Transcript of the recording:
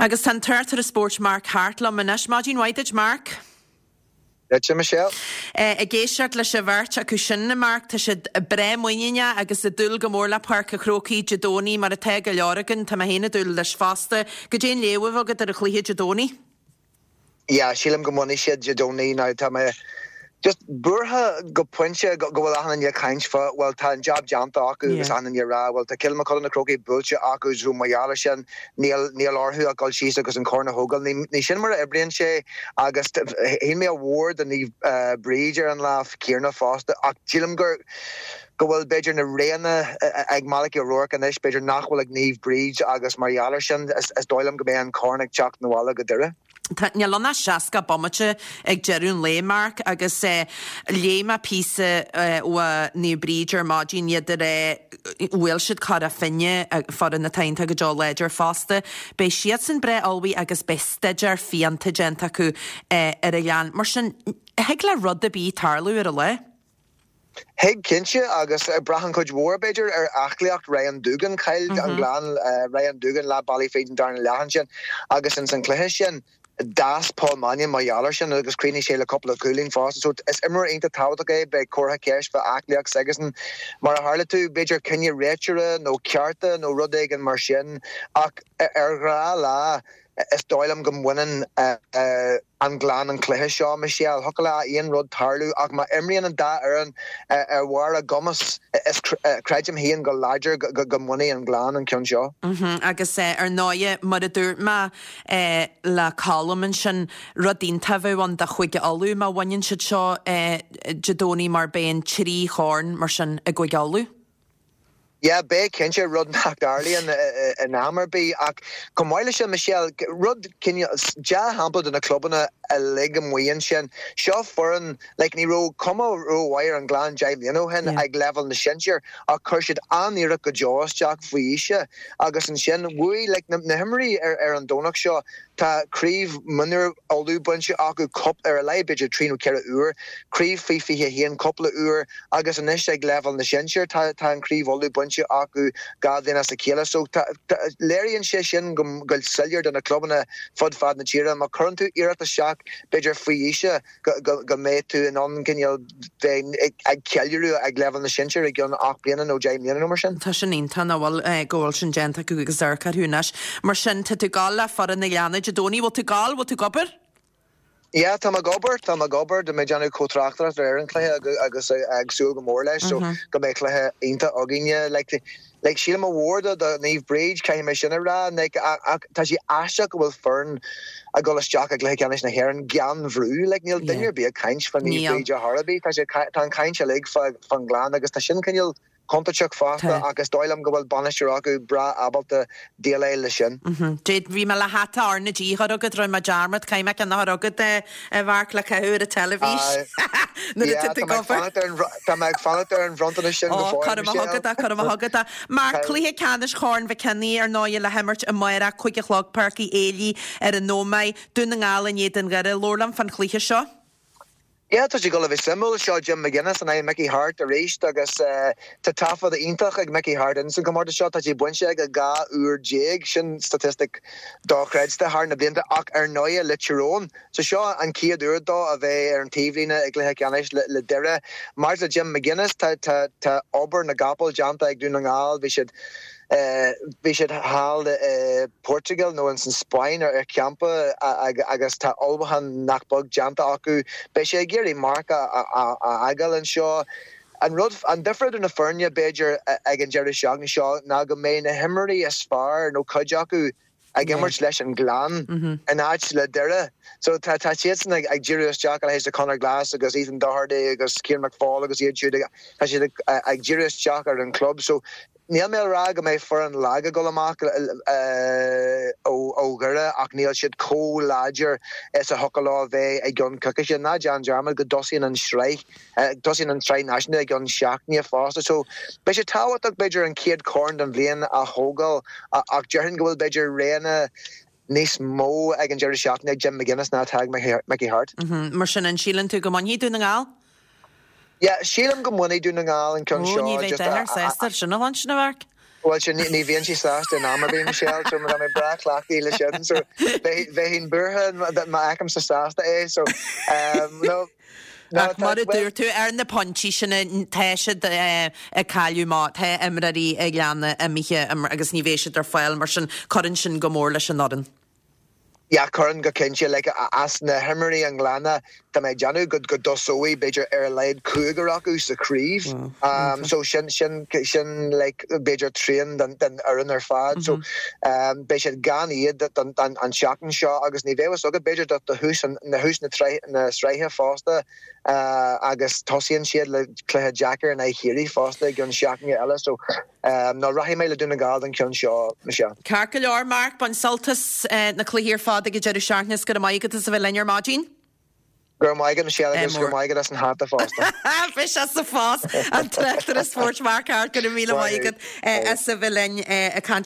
Agus tá an tráchtaire spóirt Mark Harte liom anois. Maidin mhaith duit, Mark. Duitse, Michelle. Ag éisteacht leis an bheirt acu sin, a Mark, tá siad breá muiníneach agus ag dúil go mór le Páirc an Chrócaigh Dé Domhnaigh, mar atá go leor againn. Tá mé féin ag dúil leis fosta. Goidé an léamh atá agat ar an chluiche Dé Domhnaigh? Yeah, sílim go mbainfidh siad Dé Domhnaigh. Now tá mé just buartha go pointe go bhfuil achan duine ag caint fá, bhuel tá an jab déanta acu agus achan duine ag rá bhuel tá Cill Mochuda na Crócaigh buailte acu so mar gheall ar sin níl níl orthu ach dul síos agus an corn a thógáil. Ní ní sin mar a oibríonn sé agus shíl mé ádh mhór do Naomh Bríd ar an lá céanna fosta ach sílim gur go bhfuil b'fhéidir na roghanna ag Malachy O'Rourke anois b'fhéidir nach bhfuil ag Naomh Bríd agus mar gheall ar sin is dóigh liom go mbeidh an corn ag teacht 'na bhaile go Doire. Tá, níl ann ach 60 bomaite ag deireadh an lae, Mark, agus léigh mé píosa ó Naomh Bríd ar maidin, iad ag rá bhuail siad Cora Finne, foireann atá iontach go deo láidir fosta. Beidh siadsan breá ullmhaithe agus beidh staidéar fiánta déanta acu ar an Ghleann. Mar sin, thig le rud ar bith tarlú ar an lá. Thig, cinnte, agus braitheann cuid mhór, b'fhéidir, ar aclaíocht Ryan Doogan. Chaill an Gleann Ryan Doogan leath bealaigh fríd an darna leath ansin agus ins an chluiche sin d'fhás Paul Mannion mar gheall air sin agus chríochnaigh sé le cúpla cúilín fosta. So is imreoir iontach tábhachtach é, beidh comhartha ceist fá aclaíocht s'aigesan. Mar a tharla tú, b'fhéidir cinneadh réiteora nó cearta nó rud éigin mar sin ach ar ghnáthlá, Is dóigh liom go mbaineann an Gleann an cluiche seo, Michelle. Thiocfadh le aon rud tarlú ach má imríonn an dá fhoireann ar bharr a gcumas, is creidim féin go láidir go mbainfidh an Gleann an ceann seo. Agus ar ndóighe, mar a dúirt mé le Colm ansin, rud iontach a bheadh ann do Chúige Uladh má bhaineann siad seo Dé Domhnaigh mar beidh an trí chorn mar sin i gCúige Uladh. Yeah, beidh cinnte, rud nach dtarlaíonn in am ar bith. Ach chomh maith leis sin, Michelle, rud cineál, dea-shampla do na clubanna uilig amuigh ansin. Seo foireann, like, ní raibh cuma rómhaith ar an Ghleann 10 mbliana ó shin ag leibhéal na sinsear ach chuir siad an-iarracht go deo isteach faoi aois agus ansin bhuaigh, like, na himreoirí ar an Domhnach seo, Tá craobh mionúir Uladh bainte acu cúpla, ar a laghad b'fhéidir 3 nó 4 uair, craobh faoi 21 cúpla uair agus anois ag leibhéal na sinsear tá tá an craobh Uladh bainte acu 2 bhliain as a chéile. So tá léiríonn sé sin go go soiléir do na clubanna fud fad na tíre má chuireann tú iarracht isteach b'fhéidir faoi aois go mbeidh tú in ann cineál bheith ag ceiliúradh ag leibhéal na sinsear i gceann 8 mbliana nó 10 mbliana nó mar sin. Tá sin iontach nach bhfuil, go bhfuil sin déanta acu agus amharc orthu anois. Mar sin, tá tú ag gabháil le foireann an Ghleanna Dé Domhnaigh. Bhfuil tú ag gabháil? Bhfuil tú ag obair? Yeah, tá mé ag obair, tá mé ag obair. Tá mé ag déanamh comh-tráchtaireacht ar an chluiche agus ag súil go mór leis so go mbeidh cluiche iontach againne. Like, Like, sílim ádh mhór do do Naomh Bríd, caithfidh mé sin a rá, like, ach tá sé aisteach go bhfuil foireann ag dul isteach i gcluiche ceannais na hÉireann gan bhrú, like, níl duine ar bith ag caint fá Naomh Bríd ar chor ar bith, tá sé, tá an chaint uilig fá fán nGleann agus tá sin cineál contúirteach fosta ach is dóigh liom go bhfuil bainisteoir acu breá ábalta déileáil leis sin. Dé, bhí mé le hata R na G a chur agat, rinne mé dearmad, caithfidh mé ceann a chur agat, a Mharc, le caitheamh ar an teilifís nuair atá tú ag obair. Tá mé ag fanacht ar an bhronntanas sin go fóill, Michelle. Cuirfidh mé chugat é, cuirfidh mé chugat é. Marc, cluiche ceannais Chorn Mhic Cionnaith, ar ndóigh, le himirt amárach, 5 a chlog, Páirc Uí Éilí ar an Ómaigh, Dún na nGall in éadan Dhoire. Labhair liom fán chluiche seo. Yeah, tá sé ag dul a bheith suimiúil. Seo Jim McGuinness in aghaidh Mickey Harte arís agus tá taifead iontach ag Mickey Harte ins an chomórtas seo. Tá sé bainte aige 12 uair, sin statistic dochreidte thar na blianta ach ar ndóigh le Tyrone. So seo an chéad uair dó a bheith ar an taobhlíne i gcluiche ceannais le Doire. Maidir le Jim McGuinness, tá tá tá obair na gcapall déanta ag Dún na nGall. Bhí siad Bhí siad thall i Portugal nó ins an Spáinn ar champa agus tá ullmhúchán nach beag déanta acu. Beidh sé ag iarraidh marc a fhágáil anseo. An rud, an difear idir na foirne b'fhéidir ag an deireadh seachtaine seo ná go mbeidh na himreoirí is fearr nó cuid acu ag imirt leis an Ghleann in áit le Doire. So tá tá siadsan ag ag díriú isteach a leithéid de Conor Glass agus Ethan Doherty agus Cian McFaul agus iad siúd tá siad ag ag díriú isteach ar an club. So níl mé ag rá go mbeidh foireann lag ag dul amach ó ó Dhoire ach níl siad chomh láidir is a thiocfadh leo a bheith i gceann coicíse. Ná déan dearmad go dtosaíonn an sraith Tosaíonn an tSraith Náisiúnta i gceann seachtaine fosta so beidh sé tábhachtach b'fhéidir an chéad chorn den bhliain a thógáil ach déarfainn go bhfuil b'fhéidir roghanna níos mó ag an deireadh seachtaine ag Jim McGuinness ná atá ag Mickey Harte. Mar sin, an síleann tú go mbainfidh Dún na nGall? Yeah, sílim go mbainfidh Dún na nGall an ceann seo. Ó, ní bheidh duine sásta sin a chluinstin, a Mharc. Bhuel sin, ní bhíonn sé sásta in am ar bith, Michelle, so tá mé breá cleachtaithe le sin, so bheinn buartha má fheicimse sásta é, so no. Ach mar a dúirt tú, ar na pointí sin, tá siad ag cailleadh má tá imreoirí an Ghleanna imithe agus ní bheidh siad ar fáil, mar sin cuireann sin go mór leis an fhoireann. Yeah, cuireann go cinnte. Like, as na himreoirí an Ghleanna, tá mé ag déanamh go go dtosóidh b'fhéidir ar a laghad cúigear acu sa chraobh. Um, so sin, sin, sin like, b'fhéidir trian den, den fhoireann ar fad. So um, beidh siad gan iad don, don, an tseachtain seo agus ní bheidh fhios agat b'fhéidir do, do thús an, na thús na, na sraithe fosta uh, agus tosaíonn siad le cluiche deacair in aghaidh Chiarraí fosta i gceann seachtaine eile. So No, rachaidh mé le Dún na nGall don cheann seo, Michelle. Ceart go leor, Mark, bain sult as na cluichí ar fad ag an deireadh seachtaine is go raibh maith agat as a bheith linn ar maidin. Go raibh maith agat, Michelle, agus go raibh maith agat as an hata fosta. Bhí sé sa phost, an tráchtaire spóirt Mark Harte, go raibh míle maith agat as a bheith linn ag caint.